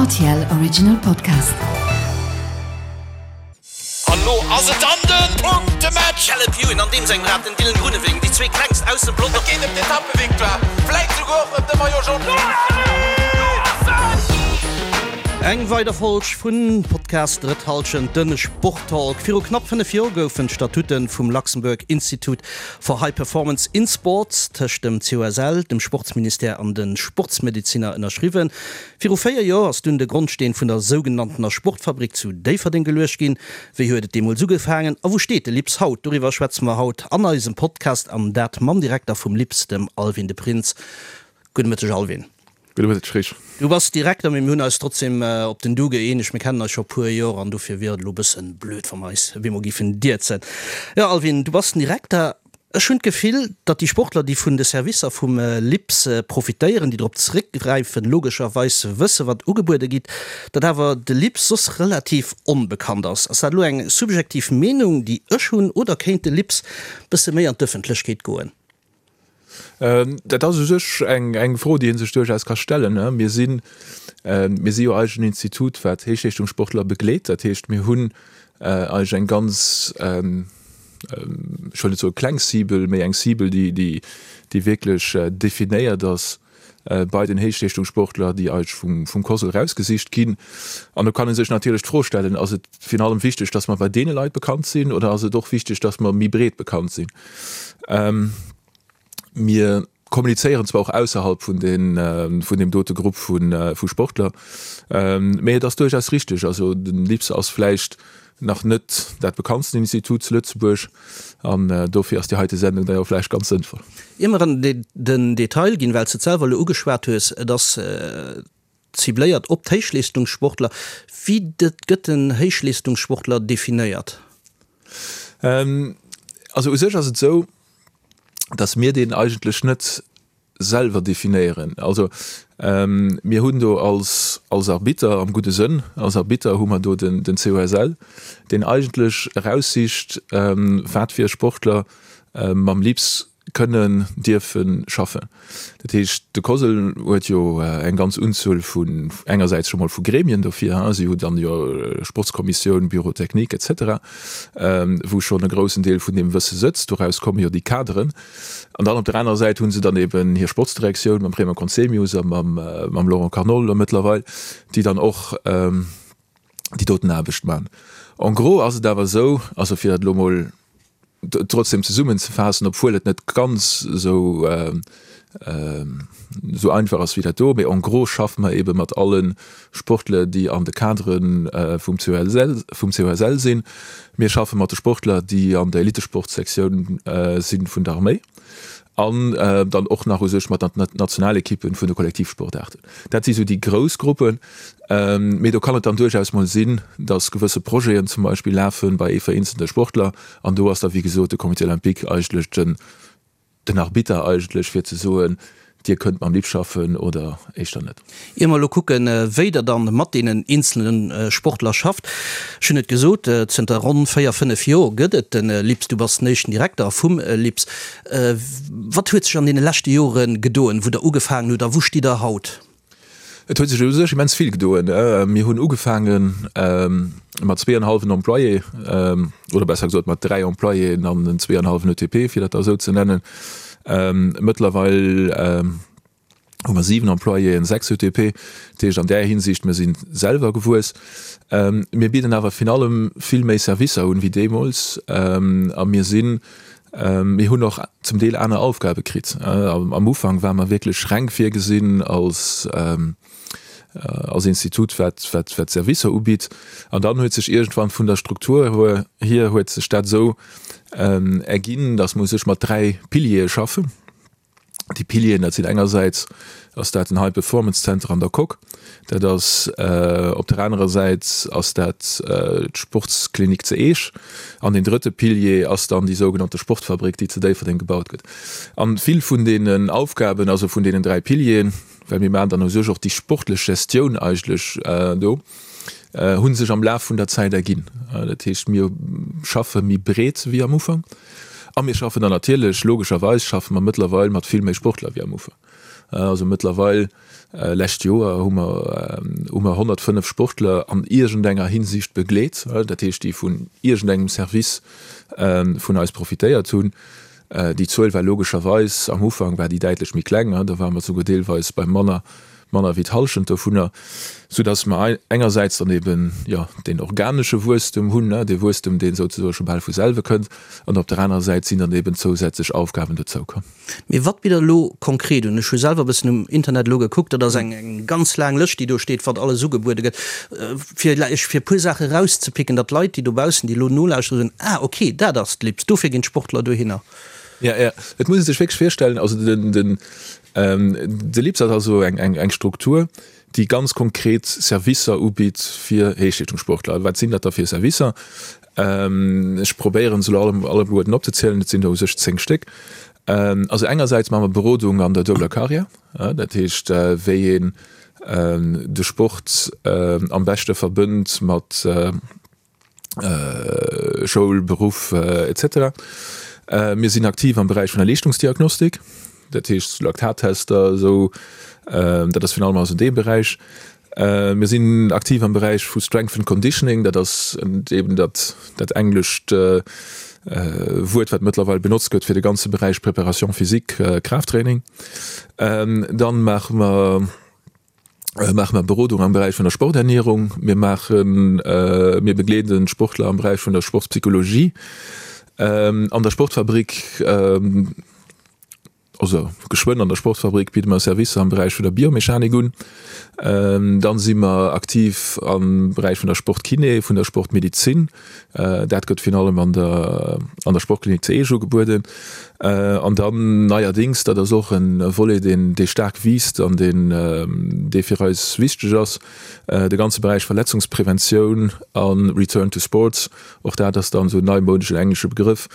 Rtl Original Podcast. An lo ass et dann den Punktematch! Caleb Ewan an deem sengem Rad, den Dylan Groenewegen, déi zwee klengst aus dem Pelotong. Et geet ëm d'Etappevictoire, vläit souguer och ëm de Maillot Jaune. Eng weider Folg vun Podcast Drëtt Halschent, den Sporttalk. Viru knapp 5 Joer goufen d'Statuten vum Luxembourg Institute for High Performance in Sports tëscht dem COSL, dem Sportsministère an de Sportsmedeziner ënnerschriwwen. Viru 4 Joer ass dunn de Grondsteen vun der sougenanntener Sportfabrik zu Déifferdeng geluecht ginn. Wéi huet et deemools ugefaangen a wou steet de LIPS haut? Doriwwer schwätze mer haut an eisem Podcast an dat mam Direkter vum LIPS, dem Alwin de Prins. Gudde Mëtteg Alwin. Gudde Mëtteg Rich. Du bass Direkter, mee mir hunn eis trotzdem op den Du gëeenegt. Mir kennen eis scho e puer Joer an dofir wier et elo e bëssen blöd, wa mer eis op eemol géifen dierzen. Jo Alwin, du bass den Direkter. Ech hunn d'Gefill, datt déi Sportler, déi vun de Servicer vum LIPS profitéieren, déi drop zeréckgräifen, logescherweis wësse wat ugebuede gitt, datt awer de LIPS soss relativ onbekannt ass. Ass dat elo eng subjektiv Meenung, déi ech hunn, oder kéint de LIPS bësse méi an d'Ëffentlechkeet goen? Dat ass u sech eng Fro, déi ee sech duerchaus ka stellen. Mir sinn, mir si jo eigentlech en Institut, wat Héichleeschtungssportler begleet. Dat heescht, mir hunn eigentlech eng ganz, ech wëll net soe kleng Cible, mee eng Cible, déi, déi wierklech definéiert ass bei den Héichleeschtungssportler, déi eigentlech vum COSL erausgesicht ginn. An do kann ee sech natierlech d'Fro stellen, Ass et virun allem wichteg, datt mer bei deene Leit bekannt sinn oder ass et och wichteg, datt mer méi breet bekannt sinn? Mir kommunizéieren zwar och ausserhalb vun deem dote Grupp vu Sportler, mee et ass duerchaus richteg, also den LIPS ass vläicht nach net dat bekanntsten Institut zu Lëtzebuerg an dofir ass déi heite Sendung da jo vläicht ganz sënnvoll. Ier mer an den Detail ginn, well s de et selwer elo ugeschwat hues, et ass cibléiert op d'Héichleeschtungssportler. Wéi gëtt en Héichleeschtungssportler definéiert? Also u sech ass et esou, datt mir deen eigentlech net selwer definéieren. Also mir hunn do als als Arbitter, am gudde Sënn als Arbitter, hu mer do den den COSL, deen eigentlech eraussicht, wat fir Sportler mam LIPS kënnen, dierfe schaffen. Dat heescht, de COSL huet jo eng ganz Unzuel vun, engersäits scho mol vu Gremien dofir, si hu dann jo Sportskommissioun, Bureau technique et cetera, wou schonn e groussen Deel vun deem Wësse sëtzt. Doraus komme jo déi Kaderen. An dann op der anerer Säit hu se dann eben hir Sportsdirektioun mam Raymond Conzemius a mam Laurent Carnol elo mëttlerweil, déi dann och déi doten Aarbecht man. En gros ass et awer esou, also fir dat elo mol trotzdem zesummenzefaassen, obwuel et net ganz esou esou einfach ass wéi dat do, mee en gros schaffe mer ebe mat alle Sportler, déi an de Cadre vum COSL, vum COSL sinn. Mir schaffe mat de Sportler, déi an der Elitesportsektioun si vun der Arméi an dann och nach u sech mat den Nationalekippen vun de Kollektivsportaarten. Dat si sou déi grouss Gruppen. Mee do kann et dann duerchaus mol sinn, datt gewësse Projeten zum Beispill lafe bei ee vereenzelte Sportler an do ass da wéi gesot de Comité olympique eigentlech den, den Arbitter eigentlech fir ze soen, Dir kënnt mam LIP schaffen oder éischter net. Ier mer elo kucken, wéi Der dann mat deenen eenzelne Sportler schafft, ech hunn et gesot, zënter ronn 4, 5 Joer gëtt et de LIPS, du bass den éischten Direkter vum LIPS. Wat huet sech an deene leschte Jore gedoen, wou Der ugefaangen hutt a wou stitt Der haut? Et huet sech u sech immens vill gedoen. Mir hunn ugefaange mat zweeënhallwen Employé, oder besser gesot mat dräi Employéen an en zweeënhallwen ETP, fir dat da esou ze nennen. Mëttlerweil hu mer siwen Employéen, sechs ETP. Dat heescht an där Hinsicht, mir si selwer gewuess. Mir bidden awer virun allem vill méi Servicer un wéi deemools a mir sinn Mir hunn och zum Deel aner Aufgabe kritt. Am Ufank ware mer wierklech reng virgesinn als als Institut, wat wat wat Servicer ubitt. An dann huet sech iergendwann vun der Struktur hier huet sech dat esou erginn, datt mer u sech mat dräi Piliere schaffen. Déi Pilieren, dat sinn engersäits ass dat den High Performance Center an der Coque, dat ass op der anerer Säit ass dat d'Sportsklinik ze Eech an deen drëtte Pilier ass dann déi sougenannte Sportfabrik, déi zu Déifferdeng gebaut gëtt. An vill vun deenen Aufgaben, also vun deenen dräi Pilieren, well mir maachen dann u sech och déi sportlech Gestioun eigentlech do, hu sech am Laf vun der Zäit erginn. Dat heescht, mir schaffe méi breet wéi am Ufank a mir schaffen dann natierlech, logescherweis schaffe mer mëttlerweil mat vill méi Sportler wéi am Ufank. Also mëttlerweil, lescht Joer hu mer hu mer 105 Sportler an iergendenger Hinsicht begleet, dat heescht déi vun iergendengem Service vun eis profitéiert hunn. Déi Zuel war logescherweis, am Ufank war déi däitlech méi kleng, do ware mer souguer deelweis bei manner, manner wéi d'Hallschent dovunner, soudass mer engersäits dann eben, jo, deen organesche Wuesstem hunn, dee Wuesstem, dee souzesoe scho bal vu selwe kënnt, an op der anerer Säit sinn dann eben zousätzlech Aufgaben dozoukomm. Mee wat bitt Der elo konkret un? Ech hu selwer e bëssen um Internet elo gekuckt, dat ass eng ganz laang Lëscht, déi do steet, wat alles ugebuede gëtt. Fir lech fir e puer Saache erauszepicken, datt d'Leit, déi dobaussen, déi elo nolauschteren, soen, Ah, okay, dat ass d'LIPS, dofir ginn d'Sportler dohinner. Jo, jo, et muss ee sech wierklech virstellen, also den, den, de LIPS ass also eng, eng, eng Struktur, déi ganz konkret Servicer ubitt fir Héichleeschtungssportler. Wat sinn dat da fir Servicer? Ech probéieren se elo alleguerten opzezielen, et sinn der u sech 10 Stéck. Also engersäits maache mer Berodung an der duebeler Karriär, dat heescht wéi een de Sport am beschte verbënnt mat Schoul, Beruff etc. Mir sinn aktiv am Beräich vun der Leeschtungsdiagnostik, dat heescht Laktattester esou, dat ass virun allem also dee Beräich. Mir sinn aktiv am Beräich vu Strength and Conditioning, dat ass eben dat dat englescht Wuert, wat mëttlerweil benotzt gëtt fir de ganze Beräich Préparation physique, Kraafttraining. Dann maache mer maache mer Berodung am Beräich vun der Sporternierung. Mir maachen mir begleeden d'Sportler am Beräich vun der Sportspsychologie. An der Sportfabrik Also geschwënn an der Sportfabrik bidde mer Servicer am Beräich vun der Biomechanik un. Dann si mer aktiv am Beräich vun der Sportkiné, vun der Sportmedizin. Dat gëtt virun allem an der an der Sportklinik zu Eech ugebueden. An dann neierdéngs, dat ass och e Volet, deen dee staark wiisst an deen dee fir eis wichteg ass, de ganze Beräich Verletzungspreventioun a Return to Sports. Och dat ass dann esou en neimodeschen englesche Begrëff,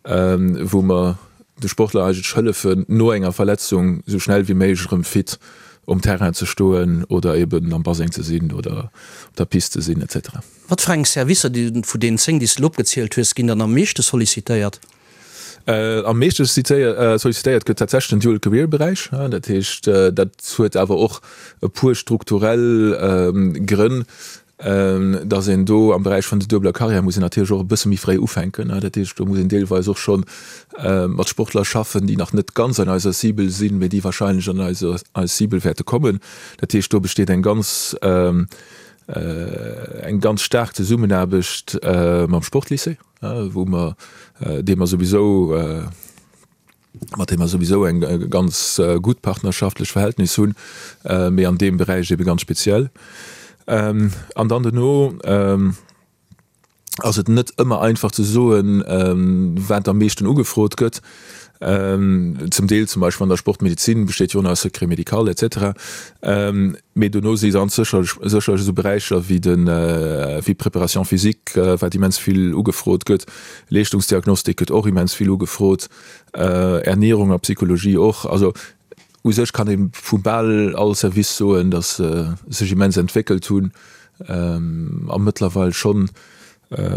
wou mer de Sportler eigentlech hëllefen, no enger Verletzung esou schnell wéi méiglech erëm fit um Terrain ze stoen oder eben am Baseng ze sinn oder op der Piste ze sinn etc. Wat fir eng Servicer vun deenen 10, déi s de elo opgezielt hues, ginn dann am meeschte sollicitéiert? Am meeschte sollicitéiert gëtt tatsächlech den Dual Career Beräich. Dat heescht, dat huet awer och e puer strukturell Grënn. Datt een do am Beräich vun der duebeler Carrière muss een natierlech och e bësse méi fréi ufänken. Dat heescht, do muss een deelweis och scho mat Sportler schaffen, déi nach net ganz an eiser Cible sinn, mee déi wahrscheinlech an eis Cible wäerte kommen. Dat heescht, do besteet eng ganz, eng ganz staark Zesummenaarbecht mam Sportlycée, wou mer, dee mer souwisou, mat deem mer souwisou eng ganz gutt partnerschaftlech Verhältnis hunn, mee an deem Beräich ebe ganz speziell. An dann duerno ass et net ëmmer einfach ze soen, wat am meeschten ugefrot gëtt. Zum Deel zum Beispill an der Sportmedizin besteet jo och nach e Secret médical et cetera. Mee dono si ganz sécherlech sécherlech esou Beräicher wéi de wéi d'Préparation physique, wat immens vill ugefrot gëtt, Leeschtungsdiagnostik gëtt och immens vill ugefrot, Ernierung a Psychologie och. Also u sech kann ee vu bal all Service soen, datt se sech immens entwéckelt hunn a mëttlerweil schonn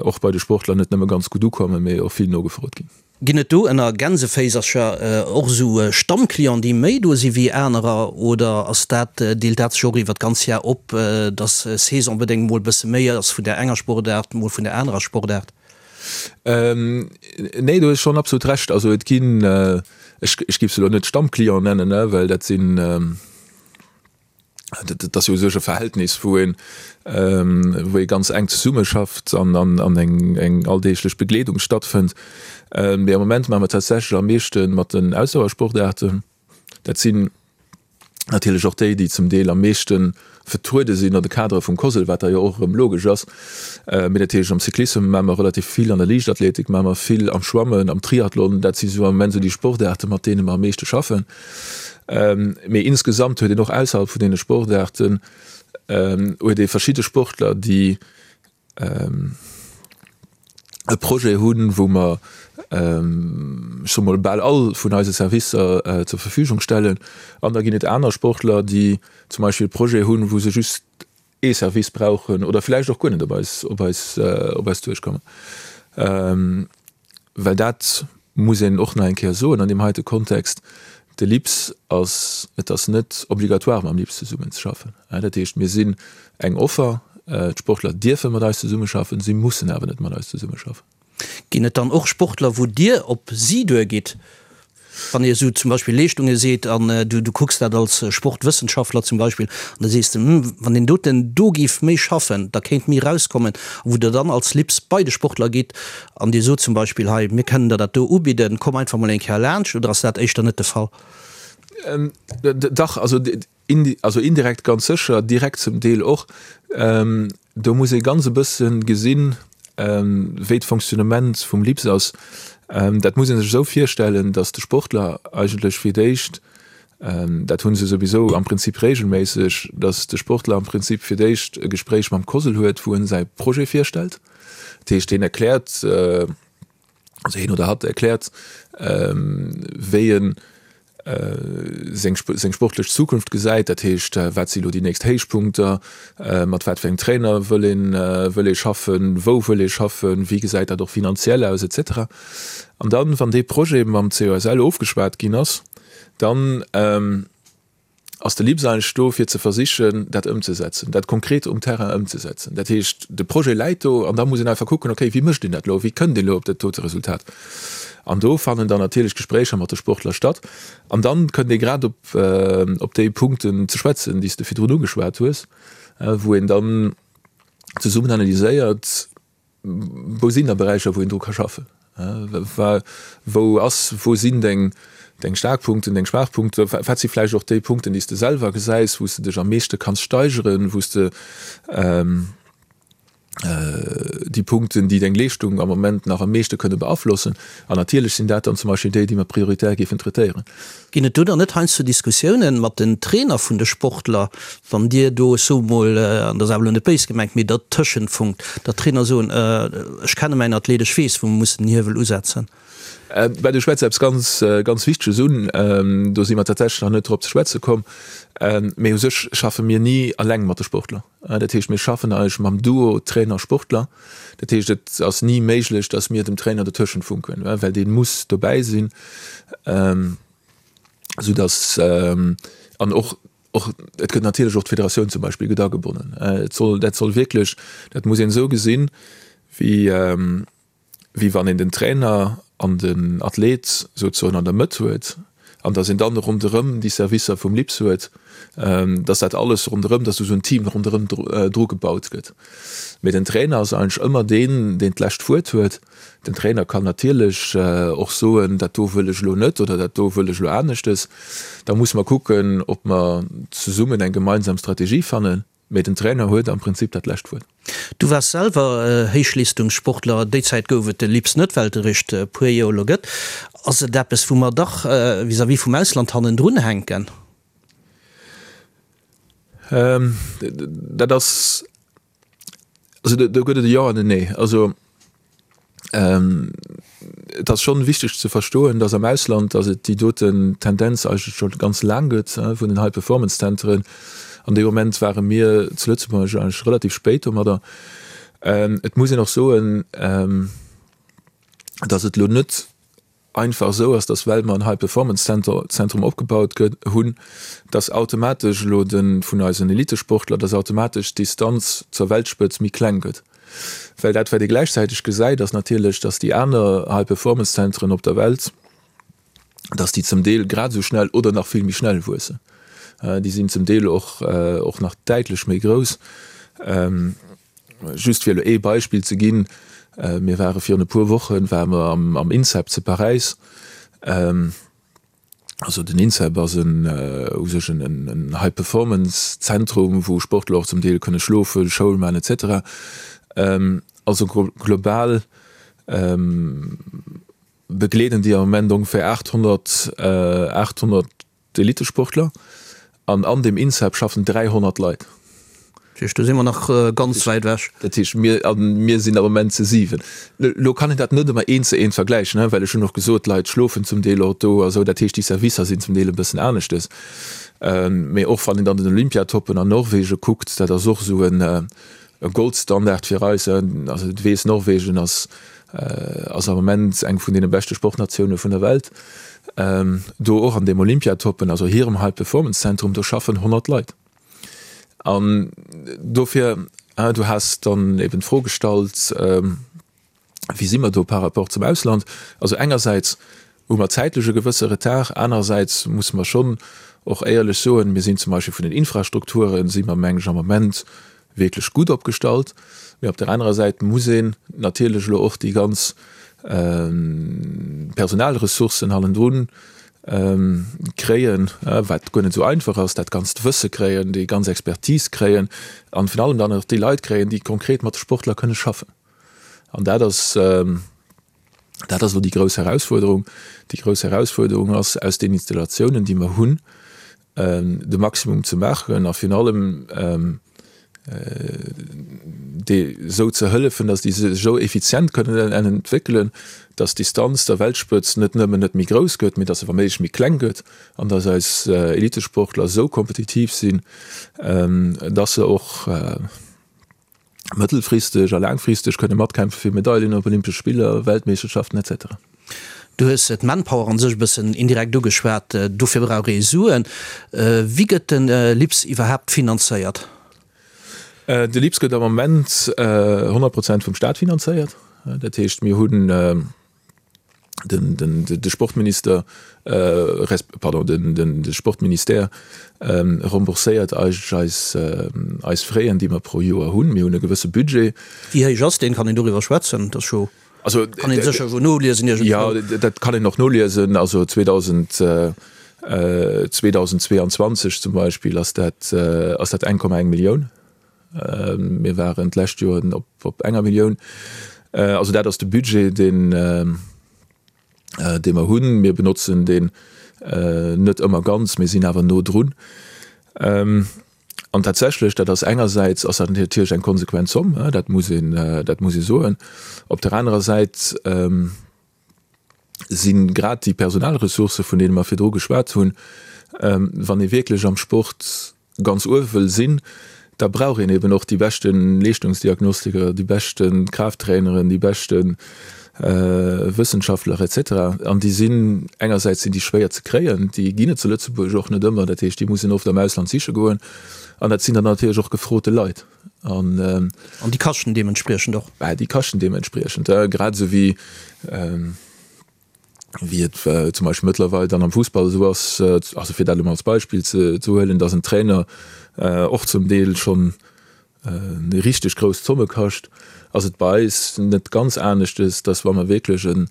och bei de Sportler net nëmme ganz gutt ukommen, mee och vill nogefrot ginn. Ginn et do ënner Gänseféisercher och esou Stammclienten, déi méi do si wéi anerer, oder ass dat, deelt dat sech och iwwer d'ganz Jar op, dass saisonbedéngt mol e bësse méi ass vun där enger Sportaart, mol vun där anerer Sportaart? Nee, do hues schonn absolut Recht. Also et ginn, ech géif se elo net Stammclient nennen, well dat sinn, Dat ass jo u sech e Verhältnis, wou een, wou ee ganz enk zesummeschafft an an eng eng alldeeglech Begleedung stattfënnt. Mee am Moment maache mer tatsächlech am meeschte mat den Ausdauersportaarten. Dat sinn natierlech och déi, déi zum Deel am meeschte vertruede sinn an de Kadere vum COSL, wat da jo och erëm logesch ass. Mee dat heescht, am Cyclissem maache mer relativ vill, an der Liichtathletik maache mer vill, am Schwammen, am Triathlon. Dat si sou am Moment sou déi Sportaarte, mat deene mer am meeschte schaffen. Mee insgesamt huet een och ausserhalb vun deene Sportaarten huet ee verschidde Sportler, déi e Projet hunn, wou mer, ech soe mol, bal all vun eise Servicer zur Verfügung stellen. An da ginn et aner Sportler, déi zum Beispill e Projet hunn, wou se just ee Service brauchen oder vläicht och guer net op eis, op eis, op eis duerchkommen. Well dat muss een och nach eng Kéier soen an deem heite Kontext. De LIPS ass, et ass net obligatoire mam LIPS zesummenzeschaffen. Dat heescht, mir sinn eng Offer, d'Sportler dierfe mat eis zesummeschaffen, si mussen awer net mat eis zesummeschaffen. Ginn et dann och Sportler, wou Dir op si duergitt, wann Dir esou zum Beispill Leeschtunge seet an du kucks dat als Sportwëssenschaftler zum Beispill an da sees de, hm, wann deen doten do géif méi schaffen, da kéint méi erauskommen, a wou Der dann als LIPS bei de Sportler gitt an Dir sot zum Beispill, hei, mir kënnen der dat do ubidden, komm einfach mol eng Kéier laanscht, oder ass dat éischter net de Fall? Dach, also Also indirekt ganz sécher, direkt zum Deel och. Do muss ee ganz e bësse gesinn, wéi d'Fonctionnement vum LIPS ass. Dat muss ee sech esou virstellen, datt de Sportler eigentlech fir d'éischt, dat hu se souwisou am Prinzip regelméisseg, datt de Sportler am Prinzip fir d'éischt e Gespréich mam COSL huet, wou en säi Projet virstellt. Dat heescht, hien erkläert, also hien oder hatt erkläert, wéi en seng seng sportlech Zukunft gesäit, dat heescht, wat si lo déi nächst Héichpunkter, mat wat fir engem Trainer wëll een wëll ee schaffen, wou wëll ee schaffen, wéi gesäit dat och finanziell aus et cetera. An dann, wann dee Projet mam COSL ofgeschwat ginn ass, dann ass de LIPS eigentlech do, fir ze versichen, dat ëmzesetzen, dat konkret um Terrain ëmzesetzen. Dat heescht, de Projet läit do an da muss een einfach kucken, okay, wéi mécht een dat elo, wéi kënnt een elo op dat dote Resultat? An do fannen dann natierlech Gespréicher mat de Sportler statt an dann kënnt ee grad op, op déi Punkten ze schwätzen, déi s de virdrun ugeschwat hues, wou een dann zesummen analyséiert, Wou sinn da Beräicher, wou een dru ka schaffen? Wou ass, wou sinn deng, deng staark Punkten, deng schwaach Punkten? Wat si vläicht och déi Punkten, déi s de selwer gesäis, wou s de dech am meeschte kanns steigeren, wou s de déi Punkten, déi deng Leeschtung am Moment nach am meeschte kënne beaflossen? An natierlech sinn dat dann zum Beispill déi, déi mer prioritär géifen traitéieren. Ginn et do dann net heiansdo Diskussiounen mat den Trainer vun de Sportler, wann Dir do, ech soe mol, an dat ass awer elo net béis gemengt, mee dertëschent funkt, datt d'Trainer soen, ech kenne mäin Athlet, ech weess wou mer mussen den Hiewel usetzen? Ben, du schwätz eppes ganz, ganz Wichteges un. Do si mer tatsächlech nach net drop ze schwätze komm. Mee u sech schaffe mir ni eleng mat de Sportler. Dat heescht, mir schaffen eigentlech mam Duo Trainer-Sportler. Dat heescht, et ass ni méiglech, datt mir dem Trainer dertëschent funken, well dee muss dobäi sinn, soudatt an och och et gëtt natierlech och d'Federatioun zum Beispill gëtt agebonnen. Et soll dat soll wierklech, dat muss een esou gesinn, wéi wéi wann een den Trainer an den Athlet souzesoen an der Mëtt huet an datt een dann ronderëm déi Servicer vum LIPS huet, datt dat alles ronderëm, datt esou en Team ronderëm dru gebaut gëtt. Mee den Trainer ass eigentlech ëmmer deen, deen d'lescht Wuert huet. Den Trainer kann natierlech och soen, dat do wëll ech elo net oder dat do wëll ech elo aneschtes. Da musse mer kucken, ob mer zesummen eng gemeinsam Strategie fannen. Mee den Trainer huet am Prinzip dat lescht Wuert. Du waars selwer Héichleestungssportler. Déi Zäit gouf et de LIPS net, well et eréischt e puer Joer elo gëtt. Ass et eppes, wou mer dach vis-à-vis vum Ausland hannendrun hänken? Dat ass, also do gëtt et e Jo an en Nee. Also Et ass schonn wichteg ze verstoen, dass am Ausland, dass et déi doten Tendenz eigentlech scho ganz laang gëtt vun den High-Performance-Zentren. An dee Moment ware mir zu Lëtzebuerg eigentlech relativ spéit domadder. Et muss een och soen, dass et elo net einfach esou ass, dass well mer en High Performance Center, Zentrum opgebaut gëtt hunn, dass automatesch elo de vun eisen Elitesportler, dass automatesch d'Distanz zur Weltspëtz méi kleng gëtt. Well dat wat ee gläichzäiteg gesäit, ass natierlech, dass déi aner High Performance Zentren op der Welt, dass déi zum Deel grad esou schnell oder nach vill méi schnell wuessen. Déi sinn zum Deel och och nach däitlech méi grouss. Just fir elo ee Beispill ze ginn, Mir ware virun e puer Woche ware mer am INSEP zu Paräis. Also den INSEP ass en u sech en High-Performance-Zentrum, wou Sportler och zum Deel kënne schlofen, Schoul maachen et cetera. Also global begleeden déi am Moment ongeféier 800, 800 D'Elitesportler, an an deem INSEP schaffen 300 Leit. Dat heescht, do si mer nach ganz wäit ewech. Dat heescht, mir, a mir sinn am Moment zu 7. Elo kann een dat net ëmmer eent zu eent vergläichen, well ech hunn och gesot, d'Leit schlofen zum Deel och do a sou. Dat heescht, déi Servicer sinn zum Deel e bëssen aneschtes. Mee och wann een dann den Olympiatoppen an Norwegen kuckt, dat ass och esou en. E Goldstandard fir eis. Also du weess, Norwegen ass ass am Moment eng vun deene beschte Sportnatioune vun der Welt. Do och an deem Olympiatoppen, also hirem High Performance Zentrum, do schaffen 100 Leit. An dofir, du has dann eben d'Fro gestallt, Wéi si mer do par rapport zum Ausland? Also engersäits hu mer zäitlech e gewësse Retard, anerersäits musse mer schonn och éierlech soen, mir sinn zum Beispill vun den Infrastrukture si mer, meng ech, am Moment wierklech gutt opgestallt. Mee op der anerer Säit muss een natierlech elo och déi ganz Personalressourcen hannendrun kréien, wat guer net esou einfach ass, dat ganzt Wësse kréien, déi ganz Expertise kréien an virun allem dann och déi Leit kréien, déi konkret mat de Sportler kënne schaffen. An dat ass, dat ass elo déi grouss Herausfuerderung. Déi grouss Herausfuerderung ass, aus den Installatiounen, déi mer hunn, de Maximum ze maachen a virun allem déi esou ze hëllefen, datt déi sech esou effizient kënnen entwéckelen, datt d'Distanz der Weltspëtz net nëmmen net méi grouss gëtt, mee datt se wa méiglech méi kleng gëtt an datt eis Elitesportler esou kompetitiv sinn, datt se och, mëttelfristeg a laangfristeg kënne matkämpfe fir Medaillen op Olympesche Spiller, Weltmeeschterschaften etc. Du hues d'Manpower an sech e bëssen indirekt ugeschwat. Dofir brauch ee Suen. Wéi gëtt de LIPS iwwerhaapt finanzéiert? De LIPS gëtt am Moment 100 Prozent vum Staat finanzéiert. Dat heescht, mir hunn den de Sportminister resp. Pardon, den de Sportministère rembourséiert eigentlech eis eis Fräen, déi mer pro Joer hunn. Mir hunn e gewësse Budget. Wéi héich ass deen? Kann een doriwwer schwätzen? Dat ass jo, Also kann een sécher jo noliesen iergendwou. Jo, dat kann een och noliesen. Also 2000, 2022 zum Beispill ass dat ass dat 1,1 Millioun. Mir waren d'lescht Joer op enger Millioun. Also dat ass de Budget, deen, dee mer hunn. Mir benotzen deen net ëmmer ganz, mir sinn awer no drun. An tatsächlech, dat ass engersäits ass dat natierlech eng konsequent Zomm, dat muss een, dat muss ee soen. Op der anerer Säit, si grad déi Personalressourcë vun deene mer virdru geschwat hunn, wann ee wierklech am Sport ganz uewe wëll sinn, da brauch een eben och déi beschte Leeschtungsdiagnostiker, déi beschte Kraafttraineren, déi beschte Wëssenschaftler et cetera. An déi sinn, engersäits sinn déi schwéier ze kréien, déi ginn et zu Lëtzebuerg och net ëmmer, dat heescht déi muss een oft am Ausland siche goen an dat sinn dann natierlech och gefrote Leit. An An déi kaschten deementspriechend och. Bah, déi kaschten deementspriechend, grad esou wéi, wéi et zum Beispill mëttlerweil dann am Fussball esou ass, also fir dat elo mol als Beispill ze huelen, dass en Trainer och zum Deel schonn richteg grouss Zomme kascht, ass et bei eis net ganz aneschtes, dass wa mer wierklech en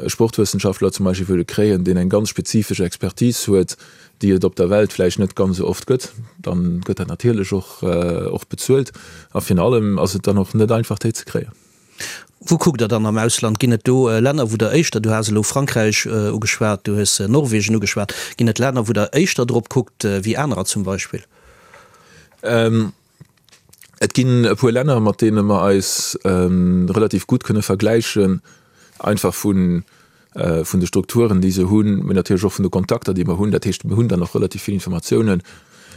Sportwëssenschaftler zum Beispill wëlle kréien, deen eng ganz spezifesch Expertise huet, déi et op der Welt vläicht net ganz esou oft gëtt, dann gëtt dat natierlech och och bezuelt. A virun allem ass et dann och net einfach, déi ze kréien. Wou kuckt Der dann am Ausland? Ginn et do Länner, wou Der éischter, du has elo Frankräich ugeschwat, du hues Norwegen ugeschwat, ginn et Länner, wou Der éischter drop kuckt wéi anerer zum Beispill? Et ginn e puer Länner, mat deene mer eis relativ gutt kënne vergläichen, einfach vun de Strukturen, déi se hunn, mee natierlech och vun de Kontakter, déi mer hunn. Dat heescht, mir hunn dann och relativ vill Informatiounen.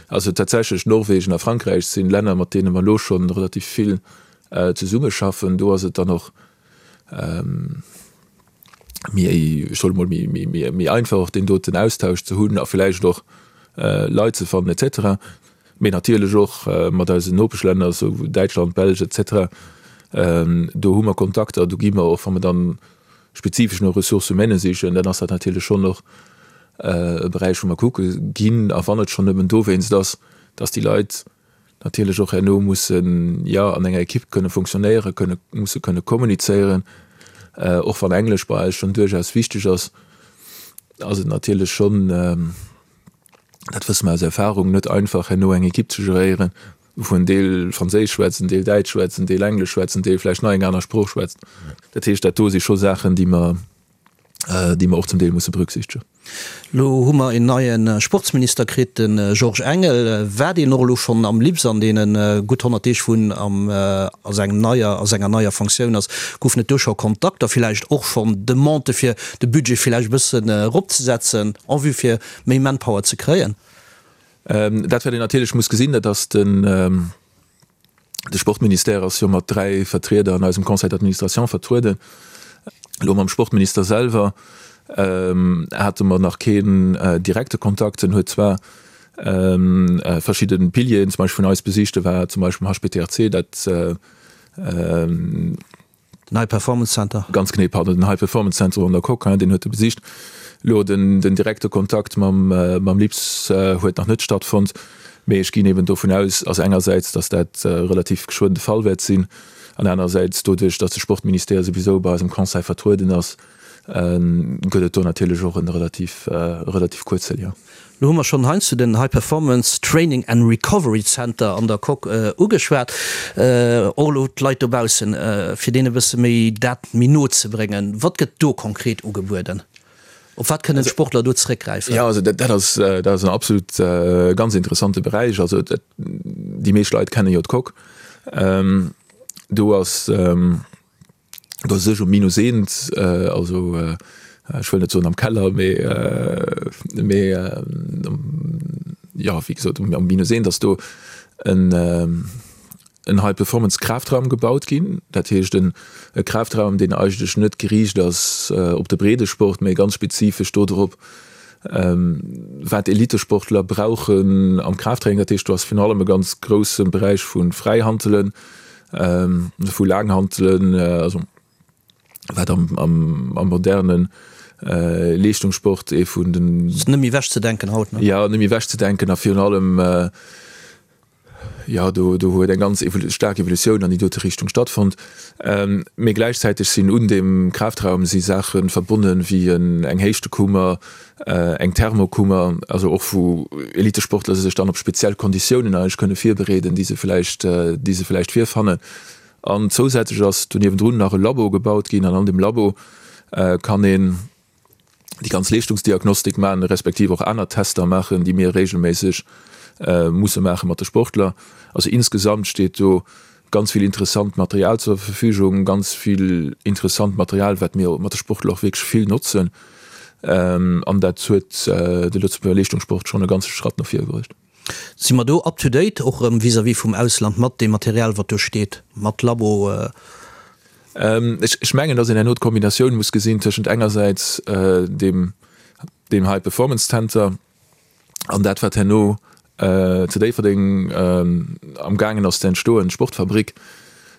Also tatsächlech Norwegen a Frankräich si Länner, mat deene mer elo scho relativ vill zesummeschaffen. Do ass et dann och méi, ech soe mol, méi einfach och deen doten Austausch ze hunn a vläicht och Leit ze fannen et cetera. Mee natierlech och mat eisen Nopeschlänner, esou Däitschland, Belsch et cetera, do hu mer Kontakter, do gi mer och, wa mer dann spezifesch no Ressources humaines sichen, dann ass dat natierlech schonn och e Beräich, wou mer kucke ginn. A wann et schonn nëmmen dowéinst ass, dass déi Leit natierlech och herno mussen, jo, an enger Ekipp kënne funktionéieren, kënne, musse kënne kommunizéieren. Och wann Englesch bei eis schonn duerchaus wichteg ass, ass et natierlech schonn, dat wësse mer aus Erfahrung, net einfach herno eng Ekipp ze geréieren, wou en Deel Franséisch schwätzt, en Deel Däitsch schwätzt, en Deel Englesch schwätzt, en Deel vläicht nach eng aner Sprooch schwätzt. Dat heescht, dat do si scho Saachen, déi mer, déi mer och zum Deel musse berücksichtegen. Elo hu mer een neie Sportsminister kritt, de Georges Engel. War deen och elo schonn am LIPS an deene gutt 100 Deeg, wou en am a sengem neier, a senger neier Fonctioun ass? Goufen et do scho Kontakter, villäicht och schonn Demandë fir de Budget villäicht e bëssen eropzesetzen en vue fir méi Manpower ze kréien? Dat wat een natierlech muss gesinn, dat ass den. De Sportministère ass jo mat 3 Vertrieder an eisem Conseil d'administration vertrueden. Elo mam Sportminister selwer hate mer nach keen direkte Kontakt. En huet zwar verschidde Pilieren zum Beispill vun eis besicht. E war zum Beispill am HPTRC, dat Den High Performance Center. Ganz genee, pardon, den High Performance Center an der Coque, deen huet e besicht. Elo den direkte Kontakt mam mam LIPS huet nach net stattfonnt, mee ech ginn eben dovun aus, also engersäits, datt dat relativ geschwënn de Fall wäert sinn, an anerersäits doduerch, datt de Sportministère souwisou bei eisem Conseil vertrueden ass, gëtt et do natierlech och e relativ relativ kuerze Lien. Lo hu mer schonn heiansdo den High Performance Training and Recovery Center an der Coque ugeschwat. Och elo d'Leit dobaussen, fir deene e bësse méi dat méi no ze bréngen. Wat gëtt do konkret ugebueden? Op wat kënnen d'Sportler do zeréckgräifen? Jo, also dat ass, dat ass en absolut ganz interessante Beräich. Also déi meescht Leit kenne jo d'Coque. Do ass. Do sech um Minus eent, also ech wëll net soen am Keller, mee mee jo wéi gesot um Minus eent ass do en en High Performance Kraftraum gebaut ginn. Dat heescht en e Kraftraum, deen eigentlech net geriicht ass op de Breedesport, mee ganz spezifesch do drop, wat Elitesportler brauchen am Kraftraining. Dat heescht do ass virun allem e ganz grousse Beräich vu Fräihantelen, vu Laanghantelen, also wat am, am, am modernen Leeschtungssport ee vun den. Ass net méi ewech ze denken haut, ne? Jo, net méi ewech ze denken a virun allem, jo, do, do huet eng ganz staark Evolutioun an déi dote Richtung stattfonnt. Mee gläichzäiteg sinn un deem Kraftraum si Saache verbonnen, wéi eng Héichtekummer, eng Thermokummer, also och wou Elitesportler sech dann op speziell Konditiounen eigentlech kënne virbereeden, déi se vläicht, déi se vläicht virfannen. An zousätzlech ass do niewendrun nach e Labo gebaut ginn an an deem Labo kann een déi ganz Leeschtungsdiagnostik maachen, respektiv och aner Tester maachen, déi mir regelméisseg musse maache mat de Sportler. Also insgesamt steet do ganz vill interessant Material zur Verfügung, ganz vill interessant Material, wat mir mat de Sportler och wierklech vill notzen. An dat huet de Lëtzebuerger Leeschtungssport schonn e ganze Schratt no vir bruecht. Si mer do up to date, och erëm vis-à-vis vum Ausland, mat deem Material, wat do steet, mat Labo? Ech mengen, datt een herno d'Kombinatioun muss gesinn tëschent engersäits deem High Performance Center, An dat, wat herno zu Déifferdeng am gaangen ass ze entstoen, d'Sportfabrik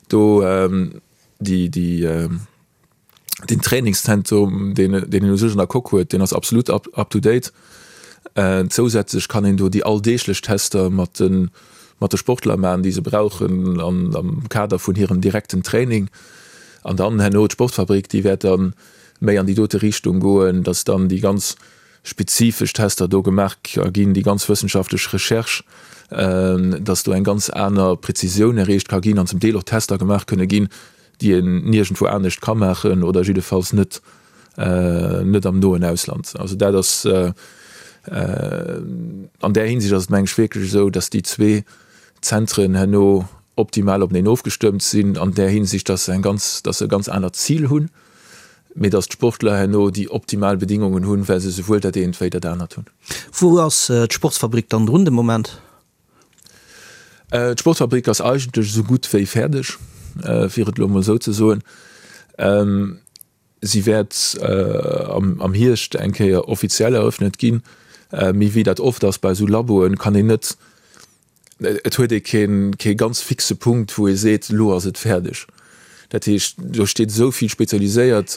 do, déi, déi, deen Trainingszentrum, deen, deen een u sech an der Coque huet, deen ass absolut up, up to date. Zousätzlech kann een do déi alldeeglech Tester mat de, mat de Sportler maachen, déi se brauchen an, am Kader vun hirem direkten Training. An dann herno d'Sportfabrik, déi wäert da méi an déi dote Richtung goen, dass dann déi ganz spezifesch Tester do gemaach ginn, déi ganz wëssenschaftlech Recherche, dass do eng ganz aner Präzisioun erreecht ka ginn an zum Deel och Tester gemaach kënne ginn, déi een niergendwou anescht ka maachen oder jiddefalls net net am noen Ausland. Also dat ass an där Hinsicht ass et meng ech wierklech esou, dass déi zwee Zentren herno optimal openeen ofgestëmmt sinn an där Hinsicht, dass se eng ganz, dass se e ganz anert Zil hunn. mee dass d'Sportler herno déi optimal Bedingungen hunn, well se souwuel dat eent wéi dat anert hunn. Wou ass d'Sportsfabrik dann drun de Moment? D'Sportfabrik ass eigentlech esou gutt wéi fäerdeg, fir et elo emol esou ze soen. Si wäert am Hierscht eng Kéier offiziell eröffnet ginn. Mee wéi dat oft ass bei esou Laboen, kann een net Et huet ee kee ganz fixe Punkt, wou ee seet, elo ass et fäerdeg. Dat heescht, do steet esou vill spezialiséiert,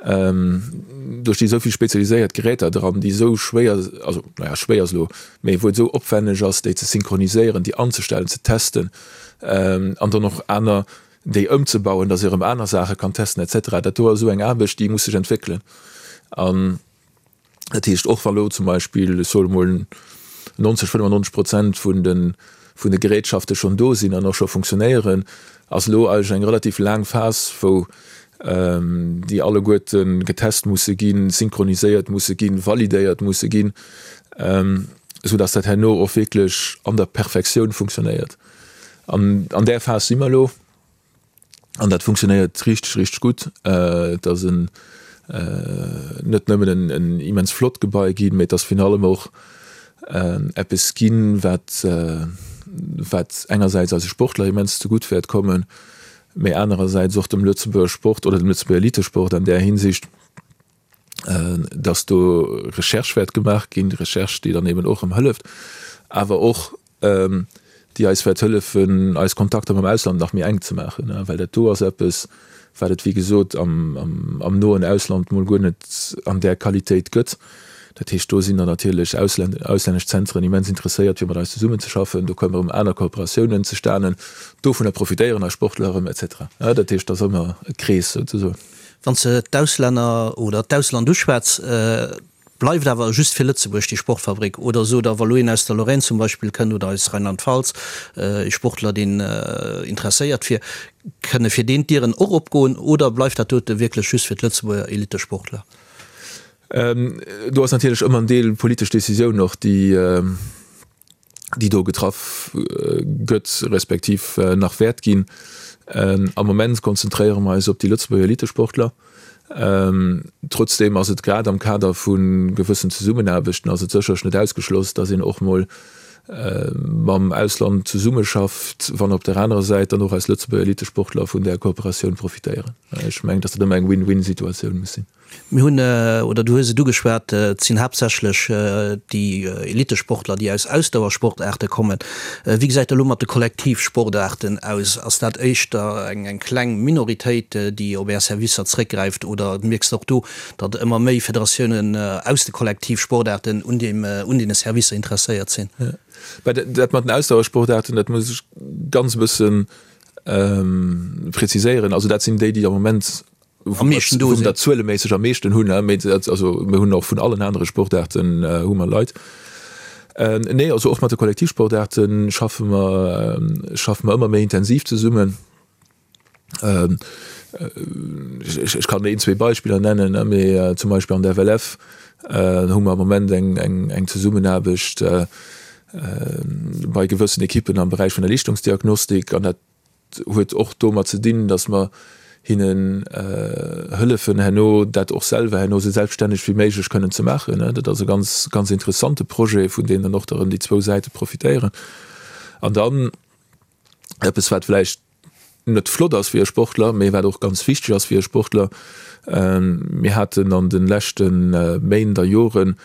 do sti esou vill spezialiséiert Geräter dran, déi esou schwéier, also naja, schwéier ass elo, mee wou et esou opwänneg ass, déi ze synchroniséieren, déi anzestellen, ze testen an dann och aner, déi ëmzebauen, datt ee erëm aner Saache kann testen et cetera. Dat do ass esou eng Aarbecht, déi muss sech entwéckelen. An Dat heescht, och wa lo zum Beispill, ech soe mol, 90, 95 Prozent vun de, vun de Gerätschafte schonn do sinn an och scho funktionéieren, ass elo eigentlech eng relativ laang Phas, wou déi alleguerte getest musse ginn, synchroniséiert musse ginn, validéiert musse ginn, esou dass dat herno och wierklech an der Perfektioun funktionéiert. An an där Phas si mer elo. An dat funktionéiert richteg, richteg gutt. Et ass en net nëmmen en immens flott Gebai ginn, mee et ass virun allem och eppes ginn, wat. wat engersäits eise Sportler immens zegutt wäert kommen, mee anerersäits och dem Lëtzebuerger Sport oder dem Lëtzebuerger Elitesport an där Hinsicht, dass do Recherche wäert gemaach ginn, Recherche, déi dann eben och erëm hëlleft, awer och déi eis wäert hëllefen, eis Kontakter mam Ausland nach méi enk ze maachen, well dat do ass eppes, wat et, wéi gesot, am noen Ausland mol guer net an där Qualitéit gëtt. Dat heescht, do sinn dann natierlech auslännesch Zentren immens interesséiert, fir mat eis zesummenzeschaffen. Do kommen erëm aner Kooperatiounen zustanen. Dovunner profitéieren eis Sportler erëm, et cetera. Dat heescht, dat ass ëmmer e Krees souzesoen. Wann s de d'Auslänner oder d'Ausland uschwätz, bleift awer just fir Lëtzebuerg déi Sportfabrik? Oder sot Der, wa lo een aus der Lorraine zum Beispill kënnt oder aus Rheinland-Pfalz, ee Sportler, deen interesséiert wier, kënne fir deen d'Dieren och opgoen? Oder bleift dat dote wierklech just fir d'Lëtzebuerger Elittesportler? Do ass natierlech ëmmer en Deel politesch Decisioun och, déi déi do getraff gëtt, respektiv nach wäert ginn. Am Moment konzentréiere mer eis op déi Lëtzebuerger Elitesportler. Trotzdeem ass et grad am Kader vu gewëssen Zesummenaarbechten ass et sécherlech net ausgeschloss, datt een och mol mam Ausland zesummeschafft, wann op der anerer Säit dann och eis Lëtzebuerger Elitesportler vun där Kooperatioun profitéieren. Ech mengen, datt dat ëmmer eng Win-win-Situatioun muss sinn. Mir hunn, oder du hues et ugeschwat, et sinn haaptsächlech déi Elitesportler, déi aus Ausdauersportaarte kommen. Wéi gesäit et elo mat de Kollektivsportaarten aus? Ass dat éischter eng kleng Minoritéit, déi op Är Servicer zréckgräift, oder mierks de och do, datt ëmmer méi Federatiounen aus de Kollektivsportaarten un deem, un deene Servicer interesséiert sinn? Dat mat den Ausdauersportaarten, dat muss ech ganz e bësse preziséieren. Also dat sinn déi, déi am Moment am meeschten do sinn, zueleméisseg am meeschten hunn, mee also mir hunn och vun allen anere Sportaarten hu mer Leit. Nee, also och mat de Kollektivsportaarte schaffe mer, schaffe mer ëmmer méi intensiv zesummen. Ech kann een, zwee Beispiller nennen, mee zum Beispill an der FLF hu mer am Moment eng, eng, eng Zesummenaarbecht bei gewëssen Ekippen am Beräich vun der Leeschtungsdiagnostik an dat huet och domat ze dinn, datt mer hinnen hëllefen herno dat och selwer herno esou selbststänneg wéi méiglech kënnen ze maachen. Dat ass e ganz, ganz interessante Projet, vun deem dann och erëm déi zwou Säite profitéieren. An dann eppes, wat vläicht net flott ass fir e Sportler, mee wat och ganz wichteg ass fir e Sportler, Mir haten an de leschte Méint a Joren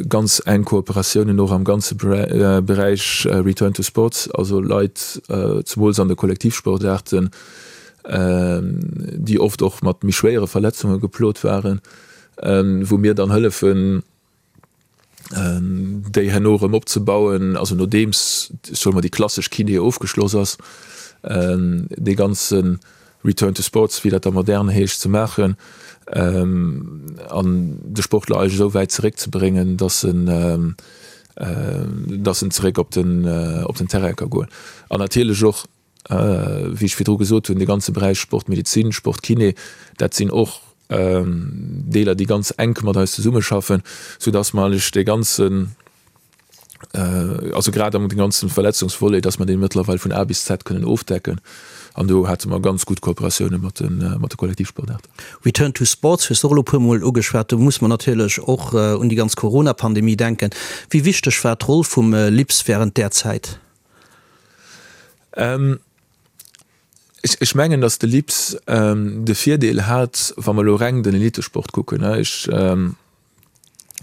Ganz enk Kooperatiounen och am ganze Beräich Return to Sports, also Leit, zemools an de Kollektivsportaarten, déi oft och mat méi schwéiere Verletzunge geplot waren, wou mir dann hëllefen, déi herno erëm opzebauen, also nodeems, soe mer, déi klassesch Kiné ofgeschloss ass, dee ganze Return to Sports, wéi dat da modern heescht, ze maachen an de Sportler eigentlech esou wäit zeréckzebréngen, dass en, dass en zeréck op den, op den Terrain ka goen. An natierlech och, wéi ech virdru gesot hunn, de ganze Beräich Sportmedezin, Sportkiné, dat sinn och Deeler, déi ganz enk mat eis zesummeschaffen, soudass mer eigentlech dee ganzen, also grad am ganzen Verletzungsvolet, dass mer dee mëttlerweil vun A bis Z kënnen ofdecken. An do hate mer ganz gutt Kooperatioune mat de mat de Kollektivsportaarten. Return to Sports hues de och elo e puermol ugeschwat. Do muss mer natierlech och un déi ganz Corona-Pandemie denken. Wéi wichteg war d'Roll vum LIPS wärend där Zäit? Ech mengen, dass de LIPS de Virdeel hat, wa mer elo reng den Elitesport kucken, ech,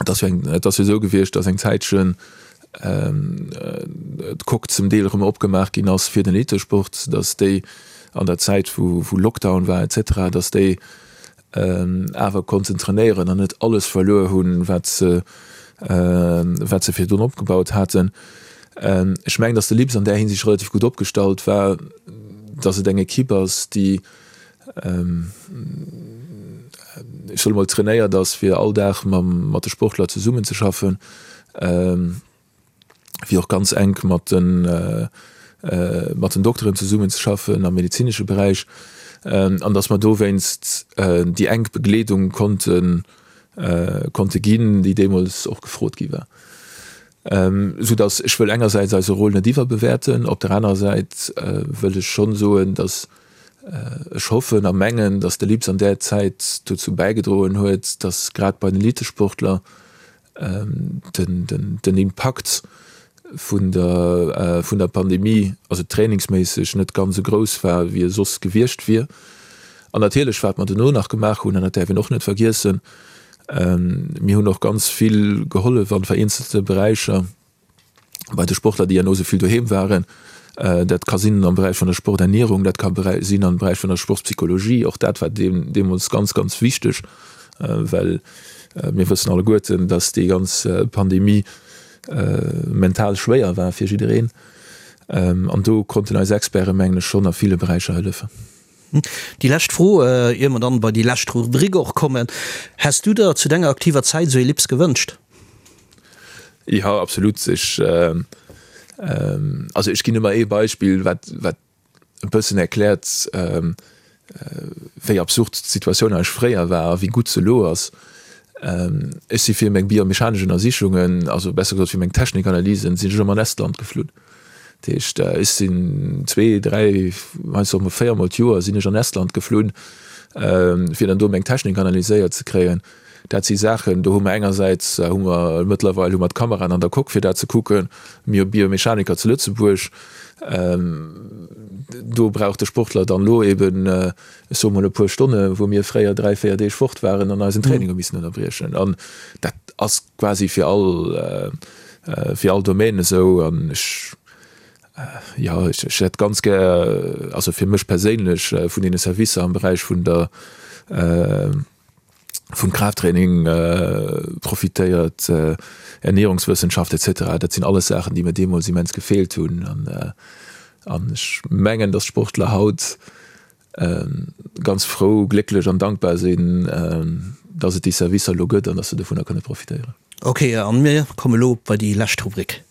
Et ass jo eng, et ass jo esou gewiescht, datt eng Zäitchen d'Coque zum Deel erëm opgemaach ginn ass fir den Elitesport, datt déi an der Zäit wou wou Lockdown war et cetera, datt déi awer konnten trainéieren an net alles verluer hunn, wat se wat se virdrun opgebaut haten. Ech mengen, datt de LIPS an där Hinsicht relativ gutt opgestallt war, datt et eng Equipe ass, déi ech soe mol, trainéiert ass, fir all Dag mam, mat de Sportler zesummenzeschaffen, fir och ganz enk mat den, mat den Dokteren zesummenzeschaffen am medezinesche Beräich, an datt mer dowéinst déi enk Begleedung konnten, konnte ginn, déi deemools och gefrot gi war. Soudatt ech wëll engersäits eise Rôle net iwwerbewäerten, op der anerer Säit wëll ech schonn soen, datt Ech hoffen a mengen, datt de LIPS an där Zäit dozou bäigedroen huet, datt grad bei den Elitesportler den Impakt. vun der vun der Pandemie, also trainingsméisseg net ganz esou grouss war, wéi e soss gewiescht wier. An natierlech, wat mer dono nach gemaach hunn, an dat däerf een och net vergiessen, mir hunn och ganz vill gehollef an vereenzelte Beräicher bei de Sportler, déi herno esou vill doheem waren. Dat ka sinn am Beräich vun der Sporternierung, dat ka sinn am Beräich vun der Sportspsychologie. Och dat war deemools ganz, ganz wichteg, well mir wëssen alleguerten, dass déi ganz Pandemie mental schwéier war fir jiddereen. An do konnten eis Experten, mengen ech, schonn a ville Beräicher hëllefen. Déi lescht Fro, ier mer dann bei déi lescht Rubrik och kommen, Häss du der zu denger aktiver Zäit esou ee Lips gewënscht? Jo, absolut. Ech, also ech ginn ëmmer ee Beispill, wat, wat e bëssen erkläert, wéi absurd d'Situatioun eigentlech fréier war a wéi gutt se elo ass. Ech si fir meng biomechanesch Ënnersichungen, also besser gesot fir meng Technikanalysen, sinn ech ëmmer an Estland geflunn. Dat heescht, ech sinn zwee, dräi, heiansdo och mol véiermol d'Joer sinn ech an Estland geflunn, fir dann do meng Technik analyséiert ze kréien. Dat si Saachen, do hu mer engersäits hu mer mëttlerweil hu mer d'Kameraen an der Coque fir dat ze kucken, mir hu Biomechaniker zu Lëtzebuerg, do brauch de Sportler dann elo eben, ech soe mol e puer Stonne wou mir fréier 3, 4 Deeg fort waren an eisen Training hu missen ënnerbriechen. An dat ass quasi fir all fir all Domaine esou an ech jo ech hätt ganz gär, also fir mech perséinlech vun deene Servicer am Beräich vun der vum Kraafttraining profitéiert, Ernierungswëssenschaft etc. Dat sinn alles Saachen, déi mir deemools immens gefeelt hunn. An ech mengen, datt d'Sportler haut ganz frou, glécklech an dankbar sinn, datt et déi Servicer elo gëtt an datt se dovunner kënne profitéieren. Ok, an mir komme lo bei déi lescht Rubrik.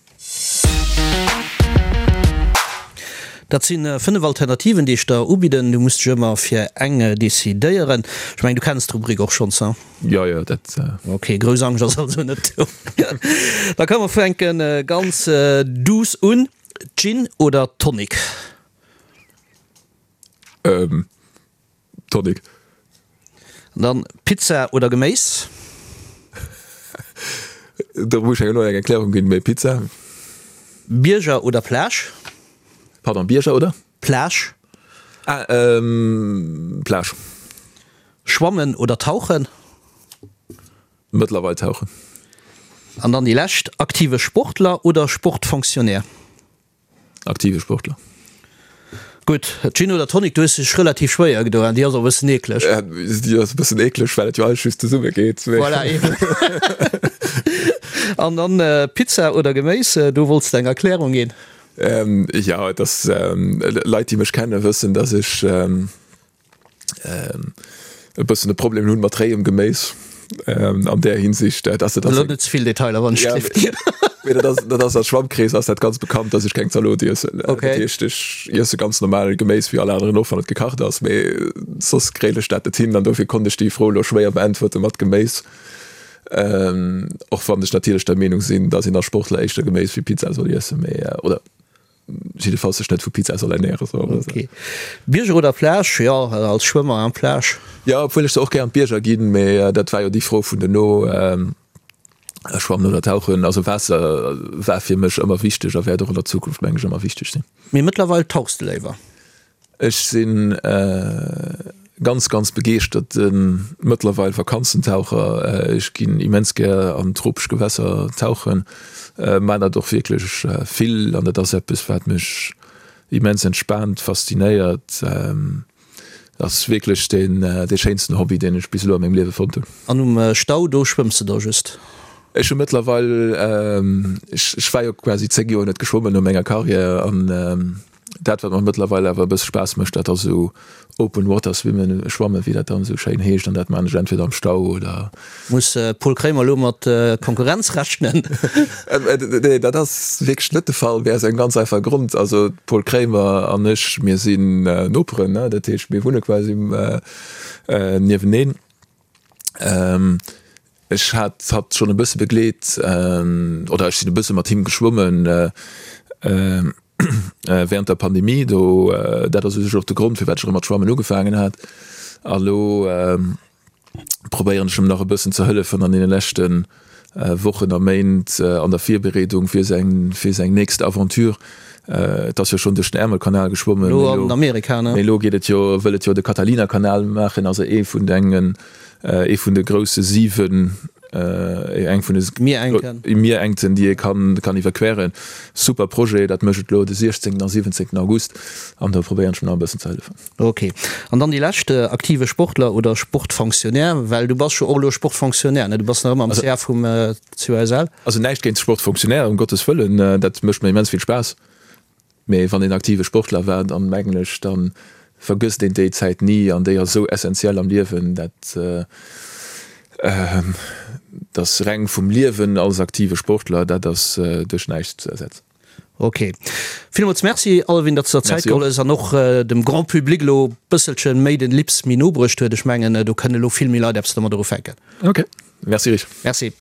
Dat si 5 Alternativen, déi ech der ubidden. Du muss dech ëmmer fir eng decidéieren. Ech mengen, du kenns d'Rubrik och schonns, hein? Jo, jo, dat. Ok, grouss Angscht ass also net do. Da komme mer fänke ganz duuss un. Gin oder Tonic? Tonic. An dann Pizza oder Geméis? Do muss ech elo eng Erklärung ginn, mee Pizza. Bierger oder Plage? Pardon, Bierger oder? Plage. Ah, Plage. Schwammen oder Tauchen? Mëttlerweil Tauchen. An dann déi lescht, aktive Sportler oder Sportfonctionnaire? Aktive Sportler. Gutt, Gin oder Tonic, du hues dech relativ schwéier gedoen, déi ass och e bëssen eekleg. Déi ass e bëssen eekleg, well et jo alles just zesumme geet. Voilà, eben. An dann Pizza oder Geméis, do wollts de eng Erklärung ginn. Jo, et ass, Leit déi mech kennen, wëssen, dass ech e bëssen e Problem hunn mat réiem Geméis an där Hinsicht, dass dat ass. Elo net ze vill Detailer, wann ech gleeft. Mee dat ass, dat ass a Schwammkrees ass dat ganz bekannt, dass ech keng Zalot iessen. Okay. Dat heescht, ech iesse ganz normal Geméis wéi all aneren och, wann et gekacht ass, mee soss kréien ech dat net hin an dofir konnt ech déi Fro elo schwéier beäntwerte mat Geméis. Och wann ech natierlech der Meenung sinn, dass een als Sportler éischter Geméis wéi Pizza soll iessen, mee oder Jiddefalls sech net vu Pizza soll ernären. Ok. Bierger oder Plage? Jo, als Schwëmmer an Plage. Jo, obwuel ech se och gär an d'Bierger ginn, mee dat war jo déi Fro vun duerno, Schwammen oder Tauchen. Also Waasser war fir mech ëmmer wichteg a wäert och an der Zukunft, meng ech, ëmmer wichteg sinn. Mee mëttlerweil tauchs de léiwer? Ech sinn ganz ganz begeeschterten mëttlerweil Vakanzentaucher. Ech ginn immens gär an tropesch Gewässer tauchen, maan dat och wierklech vill an dat ass eppes wat mech immens entspaant, faszinéiert. Ass wierklech deen dee schéinsten Hobby deen ech bis elo a mengem Liewe fonnt hunn. An um Stau do schwëmms de da just? Ech hu mëttlerweil, ech war jo quasi 10 Joer net geschwommen no menger Carrière an Dat wat mer mëttlerweil awer e bësse Spaass mécht, dat ass esou Open Water Swimmen, Schwammen, wéi dat dann esou schéin heescht, an dat maan ech entweder am Stau oder. Muss Paul Kremer elo mat Konkurrenz rechnen? Nee, dat ass wierklech net de Fall, mee aus engem ganz einfache Grond, also Paul Kremer an ech, mir sinn Noperen, ne, dat heescht mir wunne quasi nieweneen. Ech hat hatt schonn e bësse begleet, oder ech sinn e bësse mat him geschwommen während der Pandemie. Do, dat ass u sech och de Grond, firwat ech erëm mat Schwammen ugefaangen hat. A lo probéieren ech em nach e bëssen ze hëllefen an deene leschte. Wochen a Méint an der Virbereedung fir seng fir seng nächst Aventure. Et ass jo schonn duerch den Ärmelkanal geschwommen, Elo an Amerika, ne? Mee elo geet et jo, wëll et jo de Catalina-Kanal maachen, also ee vun engen, ee vun de grousse 7, eng vun de Mierengten, Mierengten, déi ee kann kann iwwerqueren. Super Projet, dat mécht et elo de 16. a 17. August an do probéieren ech em nach e bëssen ze hëllefen. Ok. An dann déi lescht, aktive Sportler oder Sportfonctionnaire, well du bass jo och elo Sportfonctionnaire, ne? Du bass nach ëmmer am CA vum COSL. Also näischt géint Sportfonctionnaire, ëm Gottes Wëllen, dat mécht mir immens vill Spaass. Mee wann een aktive Sportler war, dann mengen ech, da vergësst een déi Zäit ni an déi ass esou essentiell am Liewen, dat ass reng vum Liewen als aktive Sportler, dat ass duerch näischt ze ersetzen. Ok. Villmools Merci Alvin, datt s de der Zäit geholl hues an och dem Grand Public elo bësselche méi den Lips méi no bruecht huet. Ech mengen do kënne elo vill méi Leit eppes domadder ufänken. Ok, Merci Rich. Merci.